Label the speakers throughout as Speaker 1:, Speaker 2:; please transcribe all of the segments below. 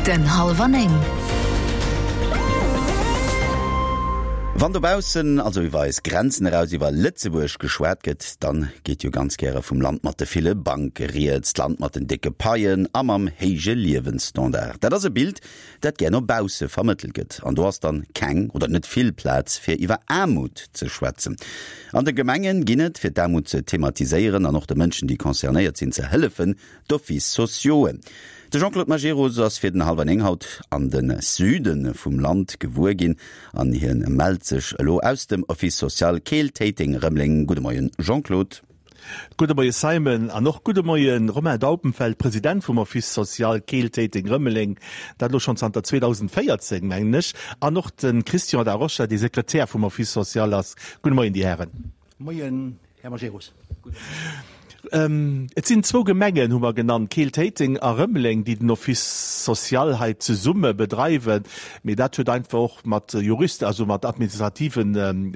Speaker 1: Den Hallwer 9.
Speaker 2: Wann dobaussen, also iwwer eis Grenzen eraus, iwwer Lëtzebuerg geschwat gëtt, dann geet jo ganz gäre vum Land mat de ville Banke rieds, d'Land mat den décke Paien a mam héije Liewensstandard. Dat ass e Bild, dat gär no bausse vermëttelt gëtt. An do ass dann keng oder net vill Plaz fir iwwer Aarmut ze schwätzen. An de Gemengen ginn et, fir d'Aarmut ze thematiséieren an och de Mënschen, déi concernéiert sinn, ze hëllefen, D'Offices sociauxen. De Jean-Claude Majerus ass fir den Hallwer 9 haut an de Süde vum Land gewuer ginn an hien mellt sech elo aus dem Office social Keel-Téiteng-Rëmeleng. Gudde Moien Jean-Claude.
Speaker 3: Gudde Moie Simon an och gudde Moie Romain Daubenfeld, President vum Office social Keel-Téiteng-Rëmeleng, dat elo schonn zanter 2014, mengen ech, an och de Christian Da Rocha, dee Sekretär vum Office social ass. Gudde Moien, Dir Hären.
Speaker 4: Moien, Här Majerus.
Speaker 3: Et sinn zwou Gemengen, hu mer genannt, Keel-Téiteng a Rëmeleng, déi den Office social hei zesumme bedreiwen. Mee dat huet einfach och mat Juristen, also mat administrative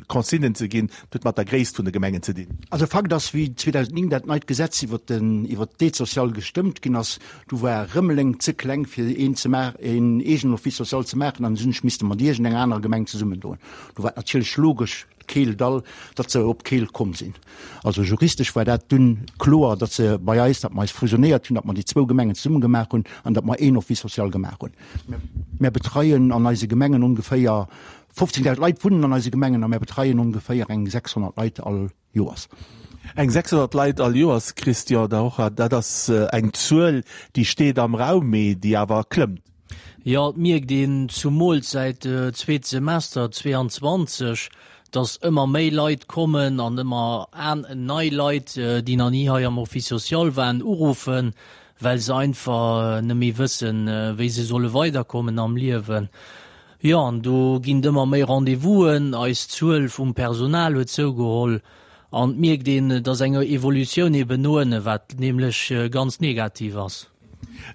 Speaker 3: Consignen ze ginn. Dat huet mat der Gréisst vun de Gemengen ze dinn.
Speaker 4: Also Fakt ass, wéi 2009 dat neit Gesetz iwwert den, iwwert d'Aide sociale gestëmmt ginn ass, du war Rëmeleng ze kleng fir een ze maachen, een eegenen Office social ze maachen an hunn ech misste mat iergendenger anerer Gemeng zesummendoen. Do war et natierlech logesch, Keeldall, datt se op Keel komm sinn. Also juristesch war dat dunn kloer, datt se bei eis, datt mer eis fusionéiert hunn, datt mer déi zwou Gemengen zesumme gemaach hunn an datt mer een Office social gemaach hunn. Mär betreien an eise Gemengen ongeféier 15.000 Leit wunnen an eise Gemengen a mär betreien ongeféier eng 600 Leit all Joers.
Speaker 3: Eng 600 Leit all Joers, Christian Da Rocha, dat ass eng Zuel, déi steet am Raum, mee déi awer klëmmt.
Speaker 5: Jo, et mierkt een zumools säit zweet Semester 22, dass ëmmer méi Leit kommen an ëmmer nei Leit, déi nach ni hei am Office social waren, uruffen, well se einfach net méi wëssen, wéi se solle weiderkommen am Liewen. Jo, an do ginn et ëmmer méi Rendez-vousen, eis Zuel vum Personal huet zougeholl an et mierkt een, dass eng Evolutioun eben no ënne, wat nämlech ganz negativ ass.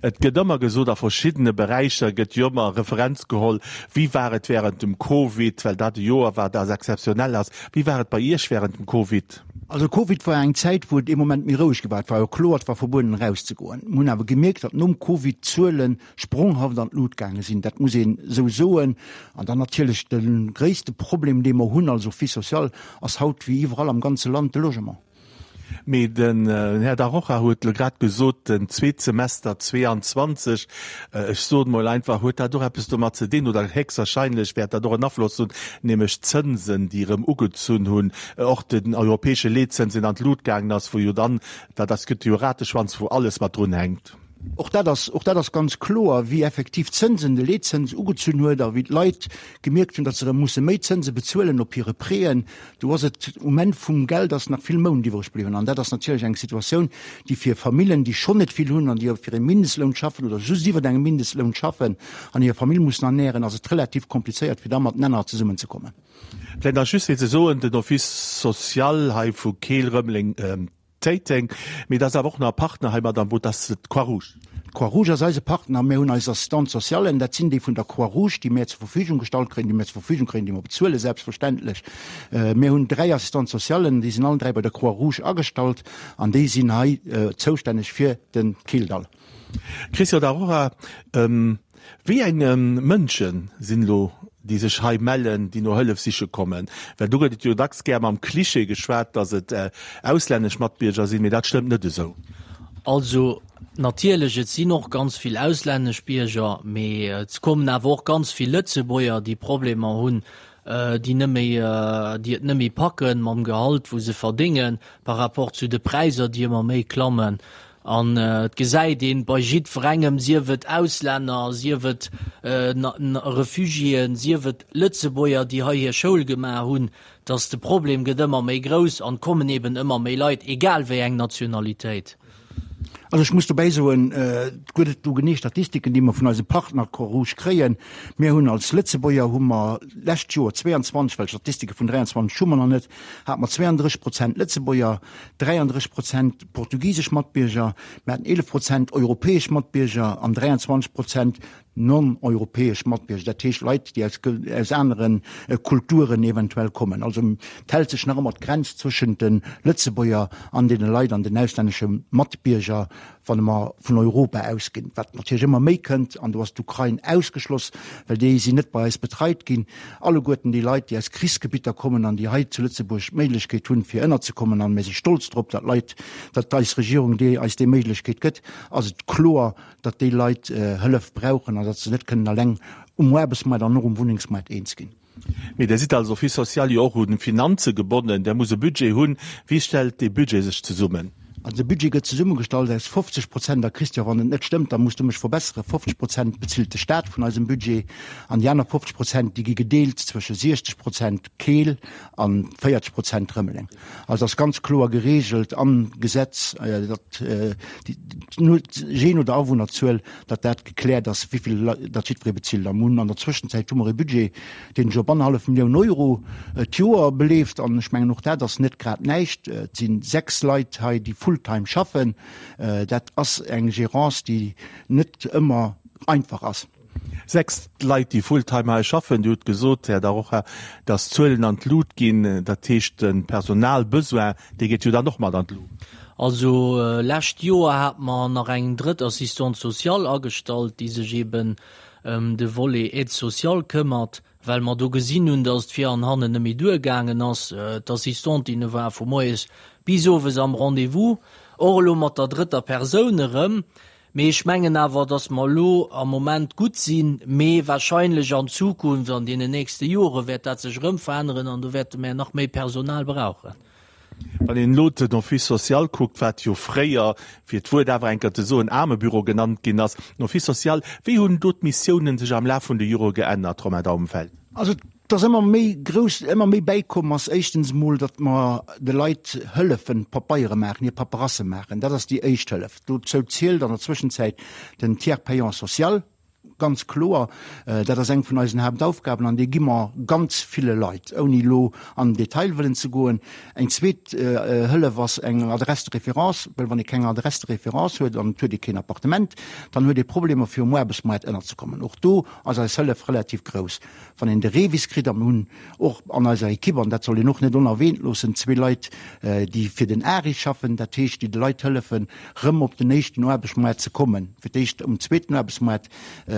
Speaker 3: Et gëtt ëmmer gesot, a verschiddene Beräicher gëtt jo ëmmer Referenz geholl, wéi war et während dem Covid, well dat e Joer war, dat exzeptionell ass. Wéi war et bei Iech während dem Covid?
Speaker 4: Also Covid war eng Zäit, wou et ee Moment méi roueg gi war. Et war jo kloer, et war verbueden erauszegoen. Mir hunn awer gemierkt, datt nom Covid d'Zuele spronghaft an d'Lut gaange sinn. Dat muss een esou soen. An dann natierlech de gréisste Problem, dee mer hunn als Office social, ass haut wéi iwwerall am ganze Land de Logement.
Speaker 3: Mee den Här Da Rocha huet elo grad gesot, den zweet Semester 22, ech soen emol einfach, huet dat och eppes domat ze dinn, oder héchstwahrscheinlech wäert dat och en Afloss hunn, nämlech d'Zënsen, déi erëm ugezunn hunn, och den europäesche Leetzëns, deen an d'Lut gaangen ass, wou jo dann, dat ass, gëtt jo e Rateschwanz, wou alles mat drunhänkt.
Speaker 4: Och dat ass, och dat ass ganz kloer, wéi effektiv d'Zënsen, de Leetzëns ugezunn huet a wéi d'Leit gemierkt hunn, datt se erëm musse méi Zënse bezuelen op hire Prêten. Do ass et um Enn vum Geld ass nach vill Mount iwwreg bliwwen. An dat ass natierlech eng Situatioun, déi fir Famillen, déi schonn net vill hunn an déi fir e Mindestloun schaffen oder just iwwert engem Mindestloun schaffen an hir Famill mussen ernären, ass et relativ komplizéiert, fir da matenaner zesummenzekommen.
Speaker 3: Vläicht nach just fir ze soen, den Office social hei vu Keel, Rëmeleng, Téiteng, mee et ass awer och nach e Partner hei mat am Boot, dat ass d'Croix-Rouge.
Speaker 4: D'Croix-Rouge ass eise Partner. Mir hunn eis Assistante socialen, dat sinn déi vun der Croix-Rouge, déi mär zur Verfügung gestallt kréien, déi mär zur Verfügung kréien, déi mer bezuelen, selbstverständlech. Mir hunn 3 Assistante socialen, déi sinn allen 3 bei der Croix-Rouge agestallt an déi sinn hei zoustänneg fir de Kildall.
Speaker 3: Christian Da Rocha, Wéi eng Mënsche sinn elo, déi sech hei mellen, déi no Hëllef siche kommen? Well do gëtt et jo dacks gär mam Klischee geschwat, datt et auslännesch Matbierger sinn, mee dat stëmmt net esou.
Speaker 5: Also natierlech, et sinn och ganz vill auslännesch Bierger, mee et kommen awer och ganz vill Lëtzebuerger, déi Problemer hunn, déi net méi, déi et net méi packen mam Gehalt, wou se verdéngen, par rapport zu de Präisser, déi ëmmer méi klammen. An et gesäit een bei jiddwerengem, sief et Auslänner, sief et Refugiéen, sief et Lëtzebuerger, déi hei hir Schoul gemaach hunn, dass de Problem gëtt ëmmer méi grouss an et kommen eben ëmmer méi Leit, egal wéi eng Nationalitéit.
Speaker 4: Also ech muss dobäi soen, et gëtt et do genee Statistiken, déi mer vun eise Partner Croix-Rouge kréien. Mir hunn als Lëtzebuerger hu mer d'lescht Joer 22, well Statistike vun 23 hu mer nach net, hate mer 32 Prozent Lëtzebuerger, 33 Prozent portugisesch Matbierger, mir haten 11 Prozent europäesch Matbierger an 23 Prozent. Non-europäesch Matbierger, dat heescht Leit, déi aus, aus anere Kulturen eventuell kommen. Also et hält sech nach ëmmer d'Grenz zwëschent de Lëtzebuerger an deene Leit an den auslännesche Matbierger, wann mer vun Europa ausginn, wat natierlech ëmmer méi kënnt, an do ass d'Ukrain ausgeschloss, well déi sinn net bei eis betreit ginn, alleguerten déi Leit, déi aus Krichsgebitter kommen an déi hei zu Lëtzebuerg d'Méiglechkeet hunn, fir ënnerzekommen, an mir si stolz drop, datt Leit, datt eis Regierung déi eis déi Méiglechkeet gëtt, ass et kloer, datt déi Leit Hëllef brauchen an datt se net kënnen eleng um Aarbechtsmaart an och um Wunnengsmaart eens ginn.
Speaker 3: Mee Der sidd als Office social jo och un Finanze gebonnen. Der musst e Budget hunn. Wéi stellt dee Budget sech zesummen?
Speaker 4: Also de Budget gëtt zesummegestallt aus 50 Prozent, a Christian, wann et net stëmmt, da muss du mech verbesseren, 50 Prozent bezilt de Staat vun eisem Budget an déi aner 50 Prozent, déi gi gedeelt zwësche 60 Prozent Keel a 40 Prozent Rëmeleng. Also ass ganz kloer geregelt am Gesetz, datt jee no der Awunnerzuel, datt dat gekläert ass, wéi vill datt jiddweree bezilt. A mir hunn an der Zwëschenzäit hu mer e Budget, deen sech op annerhallef Millioun Euro d'Joer beleeft. An ech mengen, och dat ass net grad näischt. Et si 6 Leit hei, déi fulltime schaffen. Dat ass eng Gérance, déi net ëmmer einfach ass.
Speaker 3: 6 Leit, déi fulltime hei schaffen. Dir hutt gesot, Här Da Rocha, datt d'Zuelen an d'Lut ginn. Dat heescht, de Personalbesoin, dee geet jo dann och mat an d'Lut.
Speaker 5: Also lescht Joer hate mer nach eng drëtt Assistante sociale agestallt, déi sech eben ëm de Volet Aide sociale këmmert, well mer do gesinn hunn, datt et vir an hannen net méi duergaangen ass. D'Assistentinne ware vu moies bis owes am Rendez-vous, och elo mat der drëtter Persoun erëm. Mee ech mengen awer, datt mer elo am Moment gutt sinn, mee wahrscheinlech an Zukunft, an deenen nächste Jore wäert dat sech erëm veränneren an do wäerte mer nach méi Personal brauchen.
Speaker 3: Wann een elo den Office social kuckt, wat jo fréier, fir d'Wuert awer eng Kéier ze soen, Aarmebüro genannt ginn ass, den Office social, wéi hunn do d'Missiounen sech am Laf vun de Jore geännert, Romain Daubenfeld?
Speaker 4: Also et ass ëmmer méi grouss, ëmmer méi bäikomm ass éischtens emol, datt mer de Leit hëllefen, Pabeiere maachen, hir Paperasse maachen. Dat ass déi éischt Hëllef. Dozou zielt an der Zwëschenzäit den Tiers payant social. Ganz kloer, dat ass eng vun eisen Haaptaufgaben an déi gi mer ganz ville Leit, ouni elo an den Detail wëllen ze goen. Eng zweet Hëllef ass eng Adresse de référence, well wann ee keng Adresse de référence huet an et huet ee keen Appartement, dann huet ee Problemer fir um Aarbechtsmaart ënnerzekommen. Och do ass eis Hëllef relativ grouss. Wann een de REVIS kritt, a mir hunn och an eiser Ekipp, an dat soll een och net onerwähnt loossen, zwee Leit, déi fir den ARI schaffen, dat heescht, déi de Leit hëllefen, rëm op den éischten Aarbechtsmaart ze kommen, fir d'éischt um zweeten Aarbechtsmaart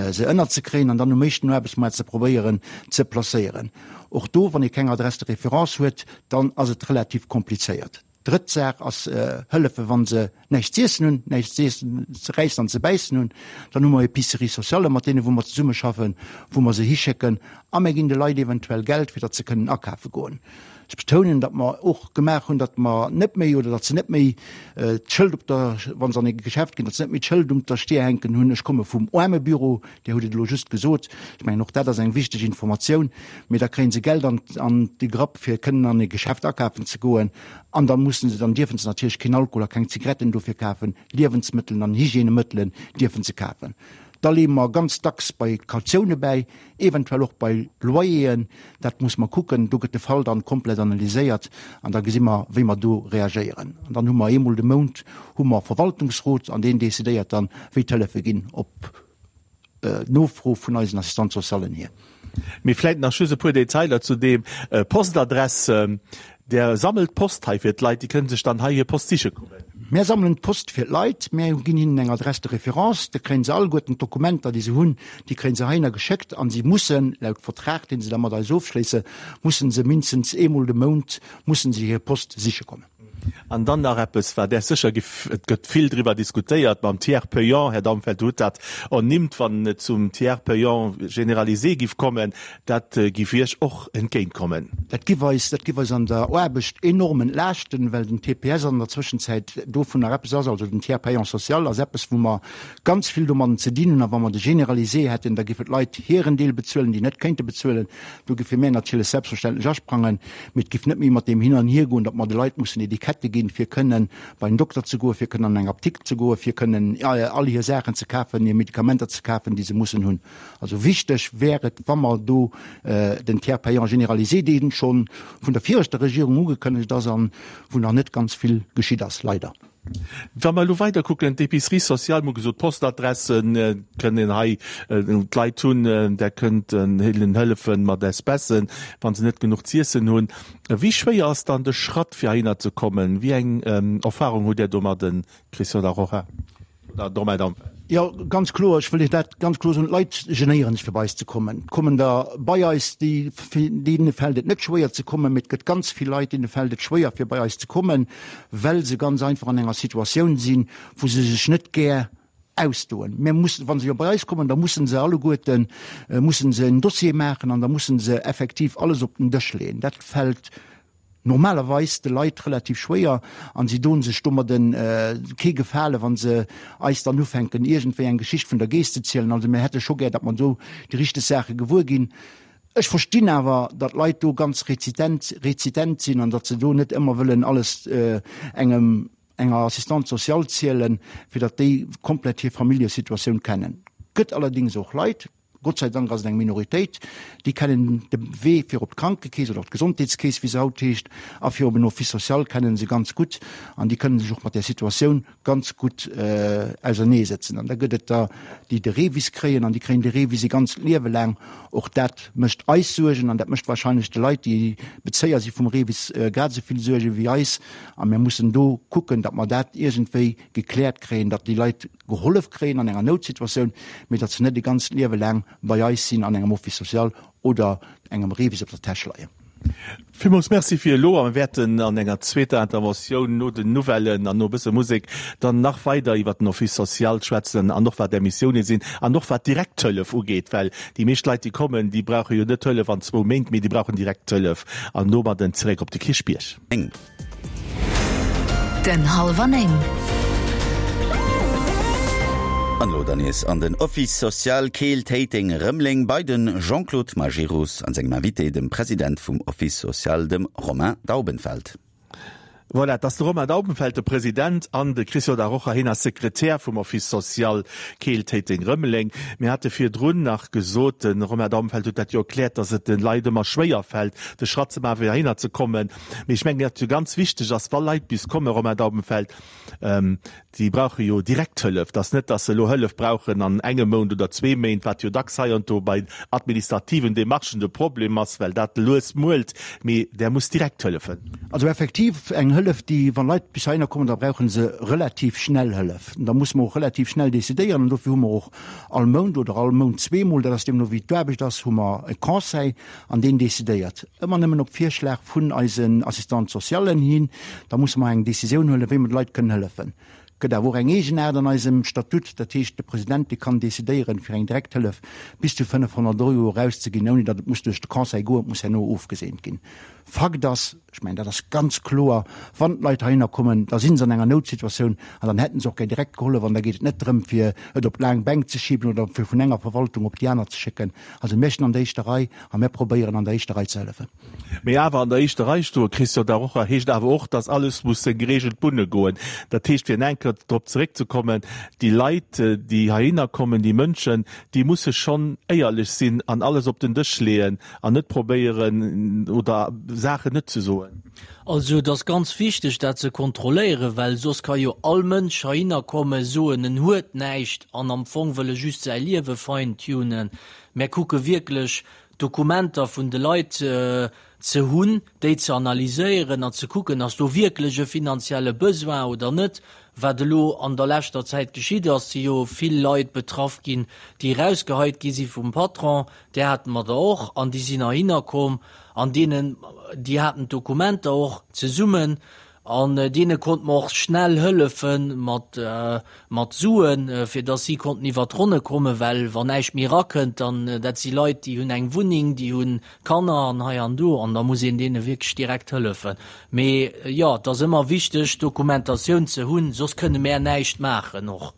Speaker 4: se ënnerzekréien an dann um éischten Aarbechtsmaart ze probéieren ze placéieren. Och do, wann ee keng Adresse de référence huet, dann ass et relativ komplizéiert. Drëtt Saach ass hëllefen, wa se näischt z'iessen hunn, näischt ze räissen an ze bäissen hunn. Dann hu mer Épiceries sociales, mat deene wou mer zesummeschaffen, wou mer se hischécken a mir ginn de Leit eventuell Geld, fir datt se kënnen akafe goen. Ech betounen, datt mer och gemaach hunn, datt mer net méi oder datt se net méi d'Schëld op der, wa se an e Geschäft ginn, datt se net méi d'Schëld um der Stier hänken hunn, ech komme vum Aarmebüro. Dir hutt et elo just gesot. Ech mengen, och dat ass eng wichteg Informatioun. Mee da kréie se Geld an, an de Grapp, fir kënnen an e Geschäft akafen ze goen. An da mussen se, dann dierfe se natierlech keen Alkohol a keng Zigaretten dofir kafen. Liewensmëttelen an Hygiènemëttelen dierfe se kafen. Da leeë mer ganz dacks bei Kautioune bäi, eventuell och bei Loyeren. Dat muss mer kucken. Do gëtt de Fall dann komplett analyséiert an da gesi mer, wéi mer do reagéieren. An dann hu mer eemol de Mount hu mer Verwaltungsrot an deen decidéiert dann, wéi d'Hëllefe ginn op Nofro vun eisen Assistante socialen hier.
Speaker 3: Mee vläit nach just e puer Detailer zu deem Postadress. Der sammelt Post hei fir d'Leit, déi kënnen sech dann hei hir Post siche kommen.
Speaker 4: Mär sammelen d'Post fir d'Leit. Mär ginn hinnen eng Adresse de référence. Da kréien se alleguerten d'Dokumenter, déi se hunn, déi kréien se heihinner geschéckt a si mussen, laut Vertrag, dee se da mat eis ofschléissen, mussen se mindestens eemol de Mount mussen se hir Post siche kommen.
Speaker 3: An dann nach eppes, wat Är sécher giff, et gëtt vill driwwer diskutéiert mam Tiers payant, Här Daumfeld, Dir hutt dat ernimmt, wann et zum Tiers payant généralisé giff kommen, dat giff Iech och entgéintkommen.
Speaker 4: Dat giff eis, dat giff eis an der Aarbecht enorm entlaaschten, well den TPS an der Zwëschenzäit dovunner eppes ass, also den Tiers payant social ass eppes, wou mer ganz vill domadden ze dinn hunn. A wa mer de généralisé hätten, da giffen d'Leit hiren Deel bezuelen, déi net kéinte bezuelen. Do giffe mär natierlech selbstverständlech asprangen, mee et giff net méi mat deem Hin an Hier goen, datt mer de Leit mussen Etikette ginn, fir kënnen bei den Dokter ze goen, fir kënnen an eng Apdikt ze goen, fir kënnen all hir Saachen ze kafen, hir Medikamenter ze kafen, déi se mussen hunn. Also wichteg wär et, wa mer do den Tiers payant généralisé, dee scho vun der viregter Regierung ugekënnegt ass an wou nach net ganz vill geschitt ass, leider.
Speaker 3: Wa mer elo weider kucken, d'Épicerie sociale, mir hu gesot, d'Postadresse kënnen hei d'Leit hunn, där kënnt hinnen hëllefen mat Espècen, wa se net genuch z'iessen hunn. Wéi schwéier ass dann de Schratt, fir heihinner ze kommen? Wéi eng Erfahrung hutt Där domadden, Christian Da Rocha? Oder Romain Dampel?
Speaker 4: Jo, ganz kloer, ech wëll Iech dat ganz kloer soen, D'Leit genéieren sech fir bei eis ze kommen. Et kommen der bei eis, déi, deene fält et net schwéier ze kommen, mee et gëtt ganz vill Leit, deene fält et schwéier fir bei eis ze kommen, well se ganz einfach an enger Situatioun sinn, wou se sech net gär ausdoen. Mir mussen, wa se jo bei eis kommen, da mussen se alleguerten, mussen se en Dossier maachen an da mussen se effektiv alles op den Dësch leeën. Dat fält normalerweis de Leit relativ schwéier an si doen sech domadden kee Gefale wann se eis dann ufänken iergendwéi eng Geschicht vun der Geess ze zielen. Also mir hätte scho gär, datt mer do déi richteg Saache gewuer ginn. Ech verstinn awer, datt Leit do ganz rezitent rezitent sinn an datt se do net ëmmer wëllen alles engem enger Assistante sociale zielen, fir datt déi komplett hir Familljesituatioun kennen. Gëtt allerdéngs och Leit, Gott sei Dank ass et eng Minoritéit, déi kennen de Wee fir op d'Krankekeess oder op d'Gesondheetskeess, wéi se haut heescht, a fir op en Office social kennen se ganz gutt an déi kënnen sech och mat där Situatioun ganz gutt auserneesëtzen. An da gëtt et der, déi de REVIS kréien an déi kréien de REVIS e ganzt Liewe laang. Och dat mécht eis Suergen an dat mécht wahrscheinlech de Leit, déi Bezéier si vum REVIS, grad esou vill Suerge wéi eis. A mir mussen do kucken, datt mer dat iergendwéi gekläert kréien, datt déi Leit gehollef kréien an enger Noutsituatioun, mee datt se net e ganzt Liewe laang bei eis sinn an engem Office social oder engem REVIS op der Täsch leien.
Speaker 3: Villmools Merci fir elo a mir wäerten an enger zweeter Interventioun no den Nouvellen an no e bësse Musek dann nach weider iwwert den Office social schwätzen an och wat Är Missiounen sinn an och wat d'Direkthëllef ugeet, well déi meescht Leit déi kommen, déi brauche jo net Hëllef an zwou Méint, mee déi brauchen direkt Hëllef an domadden zeréck op de Kierchbierg.
Speaker 2: Den Halwer Néng. An elo dann nees an den Office social Keel-Téiteng-Rëmeleng bei den Jean-Claude Majerus an sengem Invité, dem President vum Office social, dem Romain Daubenfeld.
Speaker 3: Voilà, et ass de Romain Daubenfeld, de President, an de Christian Da Rocha, hien ass Sekretär vum Office social Keel-Téiteng-Rëmeleng. Mir hate virdrun nach gesot, de Romain Daubenfeld huet dat jo erkläert, datt et de Leit ëmmer schwéier fält, de Schratt ze maachen, fir heihinner ze kommen. Mee ech mengen, wat jo ganz wichteg ass, wa Leit bis kommen, Romain Daubenfeld, déi brauche jo direkt Hëllef. Et ass net, datt se elo Hëllef brauchen an engem Mount oder zwee Méint, wat jo dacks hei an do bei administrativen Demarchen de Problem ass, well dat lues muelt, mee där muss direkt hëllefen.
Speaker 4: Also effektiv eng Hëllef, déi, wa Leit bis heihinner kommen, da brauche se relativ schnell Hëllef. Da musse mer och relativ schnell decidéieren an dofir hu mer och all Mount oder all Mount zweemol, dat ass deemno wéi d'Aarbecht ass, hu mer e Conseil, An deen decidéiert, ëmmer nëmmen op Virschlag vun eisen Assistante socialen hin. Da musse mer eng Décisioun huelen, wéi mer de Leit kënnen hëllefen. Et gëtt awer och eng Eegenaart an eisem Statut, dat heescht, de President, dee kann decidéieren, fir eng Direkthëllef bis zu 500 Euro erauszeginn, ouni datt et muss duerch de Conseil goen, et muss herno ofgeseent ginn. Fakt ass, ech mengen, dat ass ganz kloer, wann d'Leit heihinner kommen, da si se an enger Noutsituatioun an dann hätte se och gär direkt gehollef an da geet et net drëm, fir et op d'laang Bänk ze schiben oder fir vun enger Verwaltung op déi aner ze schécken. Also mir stinn an der éischter Rei a mir probéieren an der éischter Rei ze hëllefen.
Speaker 3: Mee awer an der éischter Rei stoen, Christian Da Rocha, heescht awer och, dass alles muss seng gereegelt Bunne goen. Dat heescht, fir eng Kéier drop zeréckzekommen, déi Leit, déi heihinner kommen, déi Mënschen, déi musse schonn éierlech sinn an alles op den Dësch leeën an net probéieren oder Saachen net ze soen.
Speaker 5: Also et ass ganz wichteg dat ze kontrolléieren, well soss ka jo all Mënsch heihinner kommen, soen en huet näischt an am Fong wëll e just säi Liewe fine-tunen. Mär kucke wierklech d'Dokumenter vun de Leit ze hunn, déi ze analyséieren an ze kucken, ass do wierklech e finanzielle Besoin oder net. Wat elo an der leschter Zäit geschitt ass, si jo vill Leit betraff ginn, déi erausgeheit gi si vum Patron, Där hate mer der och an déi sinn heihinner komm an deenen, déi haten d'Dokumenter och zesummen an deene konnte mer och schnell hëllefe mat, mat Suen, fir dass si konnten iwwert d'Ronne kommen, well wann näischt méi erakënnt, dann, dat si Leit, déi hunn eng Wunneng, déi hu Kanner an hei an do an da muss een deene wierklech direkt hëllefen. Mee jo, et ass ëmmer wichteg, Dokumentatioun ze hunn, soss kënne mär näischt maachen och.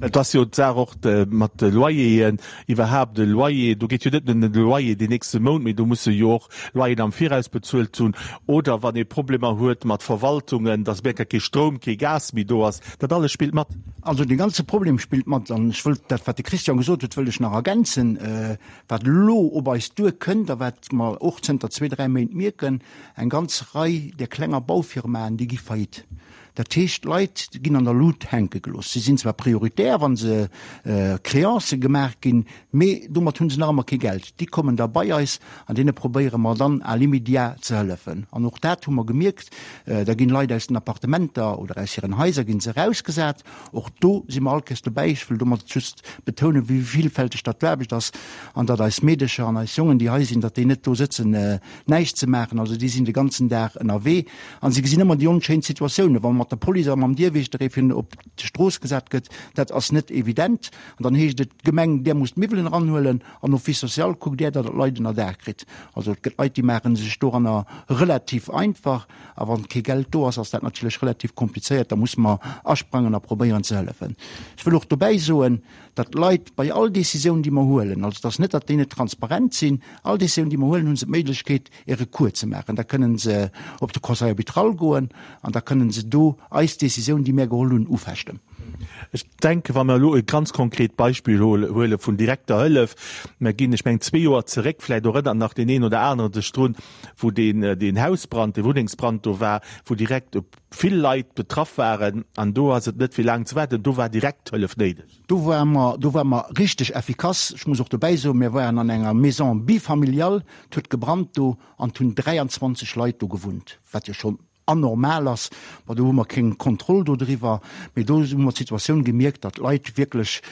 Speaker 3: Et ass jo d'Saach och mat de Loyeren, iwwerhaapt e Loyer, do geet jo net nëmmen ëm de Loyer deen nächste Mount, mee do musse jo och Loyeren am Viraus bezuelt hunn oder wann ee Problemer huet mat Verwaltungen, dass op eng Kéier kee Stroum, kee Gas méi do ass, dat alles spillt mat.
Speaker 4: Also dee ganze Problem spillt mat an ech wëllt dat, wat de Christian gesot huet, wëllt ech nach ergänzen, wat elo op eis duerkënnt a wat mer och zënter zwee, dräi Méint mierken, Eng ganz Rei där klenger Baufirmaen, déi gi faillite. Dat heescht, d'Leit ginn an der Lut hänke gelooss. Si sinn zwar prioritär, wa se Créancë gemaach ginn, mee domat hu se nach ëmmer kee Geld. Déi kommen da bei eis an deene probéiere mer dann à l'immédiat ze hëllefen. An och dat hu mer gemierkt, da ginn Leit aus den Appartementer oder aus hiren Haiser gi se erausgesat. Och do si mer all Kéiers dobäi. Ech wëll domat just betounen, wéi villfälteg datt d'Aarbecht ass an datt eis Meedecher an eis Jongen, déi hei sinn, datt déi net do sëtzen näischt ze maachen. Also déi sinn de ganzen Dag ënnerwee a se gesinn ëmmer déi onschéin Situatiounen, wa mat der Police a mam Dierwiechter ee fir op d'Strooss gesat gëtt. Dat ass net evident. An dann heescht et, Gemeng, där musst d'Miwwelen eranhuelen an Office social, kuckt där, datt der d'Leit ënnerdaach kritt. Also et gëtt Leit, déi maache sech doranner relativ einfach. A wann kee Geld do ass, ass dat natierlech relativ komplizéiert. Da musse mer asprangen a probéieren ze hëllefen. Ech wëll och dobäi soen, datt d'Leit bei all Décisioun, déi mer huelen, also et ass net, datt déi net transparent sinn, all Décisioun, déi mer huelen, hu se d'Méiglechkeet, e Recours ze maachen. Da kënnen se op de Conseil arbitral goen an da kënnen se do eis Décisioun, déi mär geholl hunn, ufechten.
Speaker 3: Ech denken, wa mer elo e ganz konkret Beispill huele vun direkter Hëllef, mer ginn, ech mengen, zwee Joer zeréck, vläicht erënnert nach deen een oder anere sech drun, wou deen, deen Hausbrand, dee Wunnengsbrand do war, wou direkt vill Leit betraff waren an do ass et net fir laang ze waarden, do war direkt Hëllef néideg.
Speaker 4: Do ware mer, do ware mer richteg effikass. Ech muss och dobäi soen, mir waren an enger Maison bifamiliale, et huet gebrannt do an et hunn 23 Leit do gewunnt, wat jo schonn anormal ass. Bon, do hu mer keng Kontroll do driwwer, mee do hu mer d'Situatioun gemierkt, datt d'Leit wierklech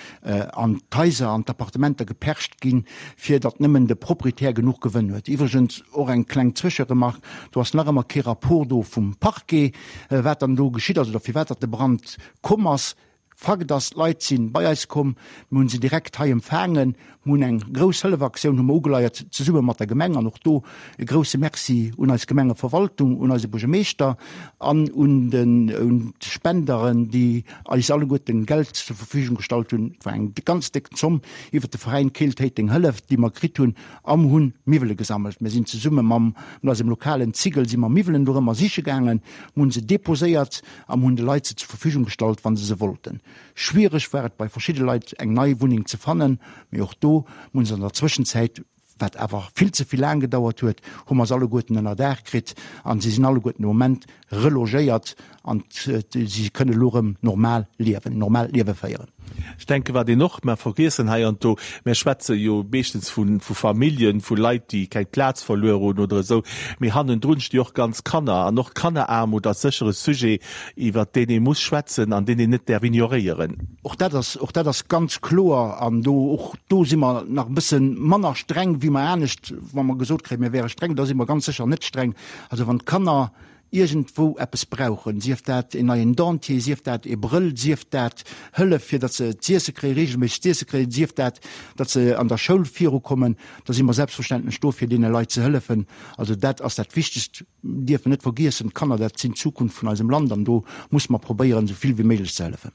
Speaker 4: an d'Haiser, an d'Appartementer gepercht ginn, fir datt nëmmen de Proprietär genuch Gewënn huet. Iwwregens och eng kleng Zwëscheremark, Do ass nach ëmmer kee Rapport do vum Parquet, wat dann do geschitt ass oder firwat datt de Brand komm ass. Fakt ass, d'Leit si bei eis komm, mir hunn se direkt hei empfaangen, mir hunn eng grouss Hëllefaktioun hu mer ugeleiert zesumme mat der Gemeng an och do e grousse Merci un eis Gemengeverwaltung, un eise Buergermeeschter an un den un d'Spenderen, déi eis alleguerten Geld zur Verfügung gestallt hunn. Et war eng ganz déck Zomm iwwert de Veräin Keel-Téiteng Hëllef, déi mer kritt hunn a mer hunn Miwwele gesammelt. Mir sinn zesumme mam mat eisem lokalen Zigel si mer Miwwelen dorëmmer siche gaangen, mer hunn se deposéiert a mer hunn de Leit se zur Verfügung gestallt, wa se se wollten. Schwiereg war et bei verschidde Leit eng nei Wunneng ze fannen, mee och do hunn se an der Zwëschenzäit, wat awer vill ze vill laang gedauert huet, hu mer se alleguerten ënnerdaach kritt a se sinn alleguerten de Moment relogéiert an si kënne elo erëm normal liewen, en normaalt Liewe féieren.
Speaker 3: Ech denken, wat een och, mer vergiessen hei an do, mer schwätze jo meeschtens vu Familljen, vu Leit, déi keng Plaz verluer hunn oder esou, mee hannendrun sti och ganz Kanner. An och Kanneraarmut ass sécher e Sujet, iwwert deen ee muss schwätzen an deen een net däerf ignoréieren.
Speaker 4: Och dat ass, och dat ass ganz kloer. An do, och do si mer nach e bësse manner streng wéi mer anescht, wa mer gesot kréien, mir wäre streng, da si mer ganz sécher net streng. Also wann d'Kanner iergendwou eppes brauchen, sief dat en neien Dentier, sief dat e Brëll, sief dat Hëllef fir datt se z'iesse kréien, reegelméisseg z'iesse kréien, sief dat datt se an der Schoul virukommen, da si mer selbstverständlech do fir deene Leit ze hëllefen. Also dat ass dat Wichtegst. Mir dierfen net vergiessen, d'Kanner dat sinn d'Zukunft vun eisem Land an do musse mer probéieren esou vill wéi méiglech ze hëllefen.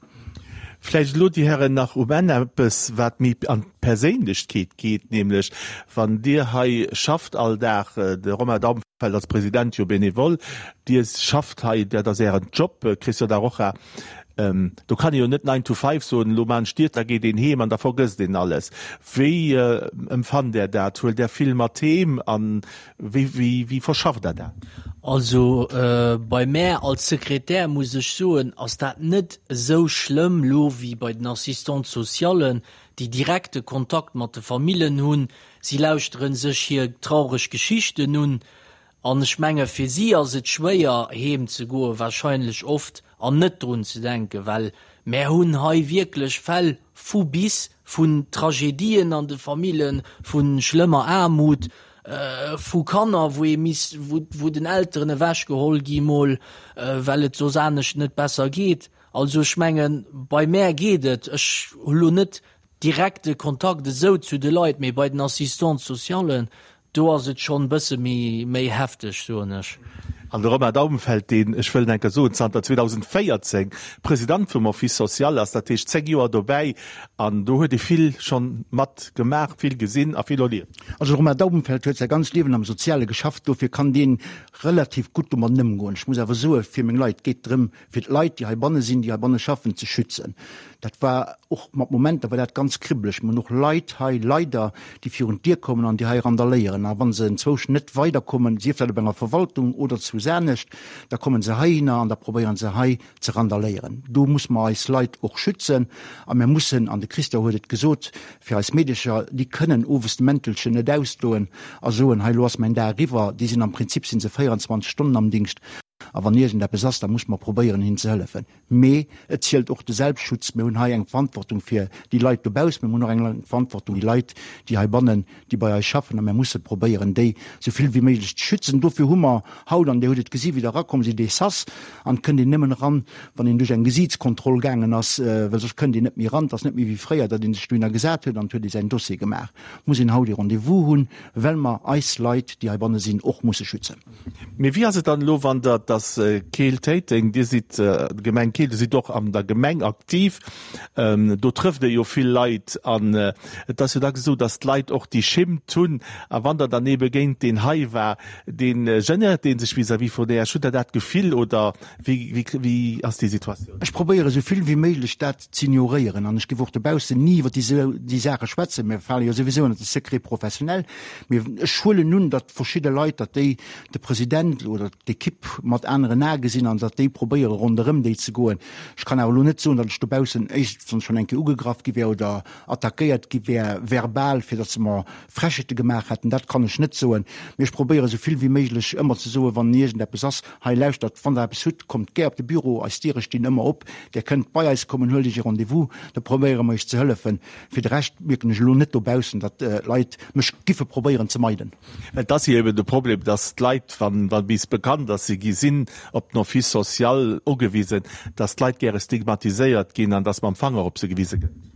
Speaker 3: Vläicht elo, Dir Hären, nach um Enn eppes, wat méi an d'Perséinlechkeet geet, nämlech wann Dir hei schafft all Dag, de Romain Daumfeld als President jo bénévole, Dir schafft hei, dat ass Ären Job, Christian Da Rocha, do kann ee jo net nine to five soen, elo maan ech d'Dier, da geet een heem an da vergësst een alles. Wéi empfannt Der dat? Huelt Der vill mat heem an Wéi, wéi, wéi verschafft Der dat?
Speaker 5: Also bei mär als Sekretär muss ech soen, ass dat net esou schlëmm lo wéi bei den Assistantes socialen, déi direkte Kontakt mat de Famillen hunn. Si lauschteren sech hir traureg Geschichten un an ech menge fir si ass et schwéier heem ze goen, wahrscheinlech oft, an net drun ze denken, well mär hunn hei wierklech Fäll vu bis, vun Tragedien an de Famillen, vu schlëmmer Aarmut, vu Kanner, wou ee misst, wou, wou den Elteren ewechgeholl gi mol, well et soss anescht net besser geet. Also ech mengen, bei mär geet et, ech hu lo net direkte Kontakt esou zu de Leit, mee bei den Assistantes socialen, do ass et schonn e bësse méi, méi hefteg, soen ech.
Speaker 3: An de Romain Daubenfeld, deen, ech wëll enker soen, zanter 2014 President vum Office social ass, dat heescht 10 Joer dobäi, an do huet ee vill schonn mat gemaach, vill gesinn a vill erlieft.
Speaker 4: Also de Romain Daubenfeld huet säi ganzt Liewen am Soziale geschafft, dofir kann dee relativ gutt domadden ëmgoen. Ech muss awer soe fir meng Leit, et geet drëm, fir d'Leit, déi heibanne sinn, déi heibanne schaffen, ze schützen. Dat war och mat Momenter war dat ganz kribbeleg. Mir hunn och Leit hei leider, déi virun d'Dier kommen an déi hei randaléieren. A wa se enzwousch net weiderkommen, sief dat op enger Verwaltung oder zu. eppes anescht, da komme se heihinner an da probéiere se hei ze randaléieren. Do muss mer eis Leit och schützen a mir mussen, an de Christian huet et gesot, fir eis Meedecher, déi kënnen owes de Mäntelchen net ausdoen a soen, hei elo ass mäin Dag eriwwer. Déi sinn am Prinzip si se 24 Stonnen am Dingscht a wann iergendeppes ass, da muss mer probéieren hinnen ze hëllefen. Mee et zielt och de Selbstschutz. Mir hunn hei eng Verantwortung fir déi Leit dobaussen, mir hunn och eng Verantwortung déi Leit, déi heibannen, déi bei eis schaffen a mir musse probéieren, déi esou vill wéi méiglech ze schützen. Dofir hu mer haut, an Dir hutt et gesi wéi Der erakomm sidd, dee Sas an et kënnt een nëmmen eran, wann een duerch eng Gesiitskontroll gaangen ass, well soss kënnt een net méi eran. Et ass net méi wéi fréier, datt ee sech dohinner gesat huet an et huet ee säin Dossier gemaach. Muss een haut ee Rendez-vous hunn, well mer eis Leit, déi heibanne sinn, och musse schützen.
Speaker 3: Mee wéi ass et dann elo, wann Der, et ass Keel-Téiteng, Dir sidd Gemeng Keel, Dir sidd och an der Gemeng aktiv, do trëfft Dir jo vill Leit an et ass jo dacks esou, datt d'Leit och déi Schimmt hunn a wann der dann eebe géint deen hei war, dee genéiert dee sech vis-à-vis vun Iech. Hutt Der dat Gefill oder wéi, wéi ass déi Situatioun?
Speaker 4: Ech probéiere sou vill wéi méiglech dat z'ignoréieren an ech géif och dobaussen ni iwwer déi Saache schwätzen. Mir fale jo souwisou ënner de Secret professionnel. Mee ech huelen un, datt verschidde Leit, datt déi de President oder d'Ekipp mat aneren Ae gesinn an datt déi probéiere ronderëm déi ze goen. Ech kann awer elo net soen, datt ech dobaussen éischtens schonn eng Kéier ugegraff gi wär oder attackéiert gi wär verbal, fir datt se mer Frechheete gemaach hätten. Dat kann ech net soen. Mee ech probéiere sou vill wéi méiglech ëmmer ze soen, wann iergendeppes ass, Hei lauschtert, wann Der eppes hutt, kommt gär op de Büro, eis Diere stinn ëmmer op, Där kënnt bei eis kommen, huelt Iech e Rendez-vous, da probéiere mer Iech ze hëllefen. Fir de Rescht mierken ech elo net dobaussen, datt d'Leit mech giffe probéieren ze meiden.
Speaker 3: Well et ass jo eben de Problem, datt d'Leit, wann bis bekannt ass, si gi sinn op den Office social ugewisen, datt d'Leit gäre stigmatiséiert ginn an datt mam Fanger op se gewise gëtt.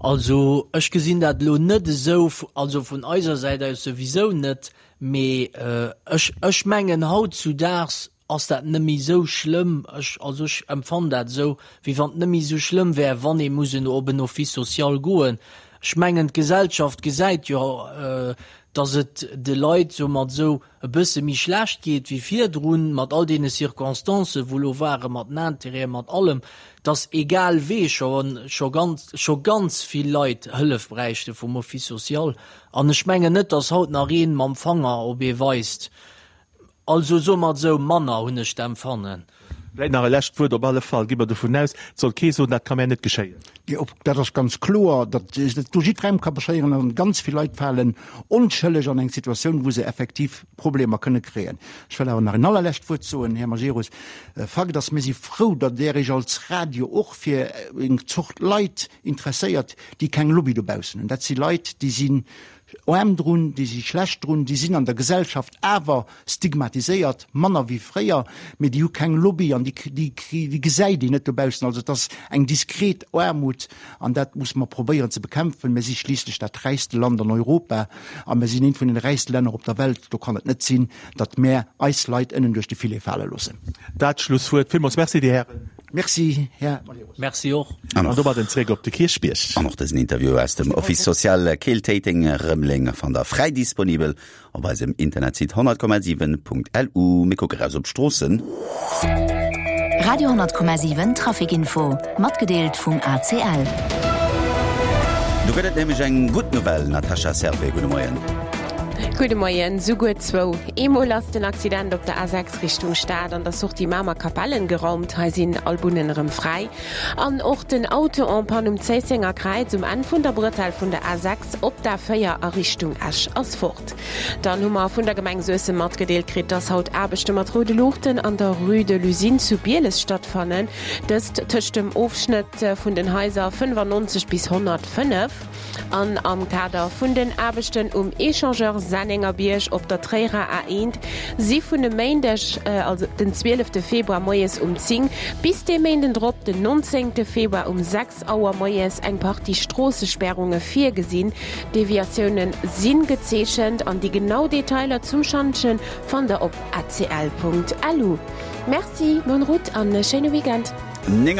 Speaker 5: Also ech gesinn dat elo net esou, also vun eiser Säit aus souwisou net, mee ech, ech mengen hautzudaags ass dat net méi esou schlëmm, ech, also ech empfannen dat esou, wéi wann et net méi esou schlëmm wär, wann ee muss en op en Office social goen. Ech mengen d'Gesellschaft gesäit jo, datt et de Leit soumat esou e bësse méi schlecht geet wéi virdrun, mat all deene Circonstancen, wou elo waren, mat den Intérêten, mat allem, dass egal wee scho, scho ganz, scho ganz vill Leit Hëllef bräichte vum Office social. An ech mengen net, dass haut nach ee mam Fanger op ee weist. Also soe mer et esou, manner hunn ech d'Empfannen.
Speaker 3: Vläicht nach e lescht Wuert, Op alle Fall gi mer dovun aus, et soll kee soen, dat ka mär net geschéien.
Speaker 4: Jo, dat ass ganz kloer, datt dat do jiddwerengem ka beschéieren an ganz vill Leit falen onschëlleg an eng Situatioun, wou se effektiv Problemer kënne kréien. Ech wëll awer nach en allerlescht Wuert soen, Här Majerus. Fakt ass, mir si frou, datt Der Iech als Radio och fir eng Zort Leit interesséiert, déi keng Lobby dobaussen hunn. Dat si Leit, déi sinn aarm drun, déi si schlecht drun, déi sinn an der Gesellschaft awer stigmatiséiert, manner wéi fréier, mee déi hu keng Lobby an déi, déi, déi gesäit een net dobaussen. Also et ass eng diskret Aarmut an dat musse mer probéieren ze bekämpfen. Mir si schliisslech dat räichste Land an Europa a mir sinn eent vun den räichste Länner op der Welt. Do kann et net sinn, datt mär eis Leit ënnen duerch de Filet fale loossen.
Speaker 3: Dat Schlusswuert. Villmools Merci, Dir Hären.
Speaker 4: Merci, Här
Speaker 5: Majerus. Merci och.
Speaker 3: An domadden zréck op de Kierchbierg.
Speaker 2: An och dësen Interview aus dem Office Social Keel-Téiteng Rëmeleng fannt der fräi disponibel op eisem Internetsite 100,7.lu. Mir kucke raus op d'Stroossen.
Speaker 1: Radio 10,7 Traficinfo, matgedeelt vum ACL.
Speaker 2: Do gëtt et nämlech eng gutt Nouvelle, Natasha Servais, gudde Moien.
Speaker 6: Gudde Moien. Souguer zwou. Eemol ass den Accident op der A6 Richtung Stad an der Sortie Mamer-Kapellen geraumt. Hei sinn all Bunnen erëm fräi. An och den Auto en panne um Zéissenger Kräiz um Enn vun der Bretelle vun der A6 op d'A4 a Richtung Esch ass fort. Dann hu mer vun der Gemeng Suessem matgedeelt kritt, dass haut Aarbechte mat roude Luuchten an der Rue de l'Usine zu Bieles stattfannen. Dëst tëscht dem Ofschnëtt vun den Haiser 95 bis 105. An am Kader vun den Aarbechten um Echangeur Sennengerbierg op der Tréierer A1 si vun e Méindeg, also den 12 Februar moies um 10 bis dee Méinden drop, den 19 Februar um 6 Auer moies eng Partie Stroossesperrunge virgesinn. Deviatioune si gezeechent an déi genau Detailer zum Schantje fannt der op acl.lu. Merci, bonne route an e schéine Weekend.
Speaker 2: 9.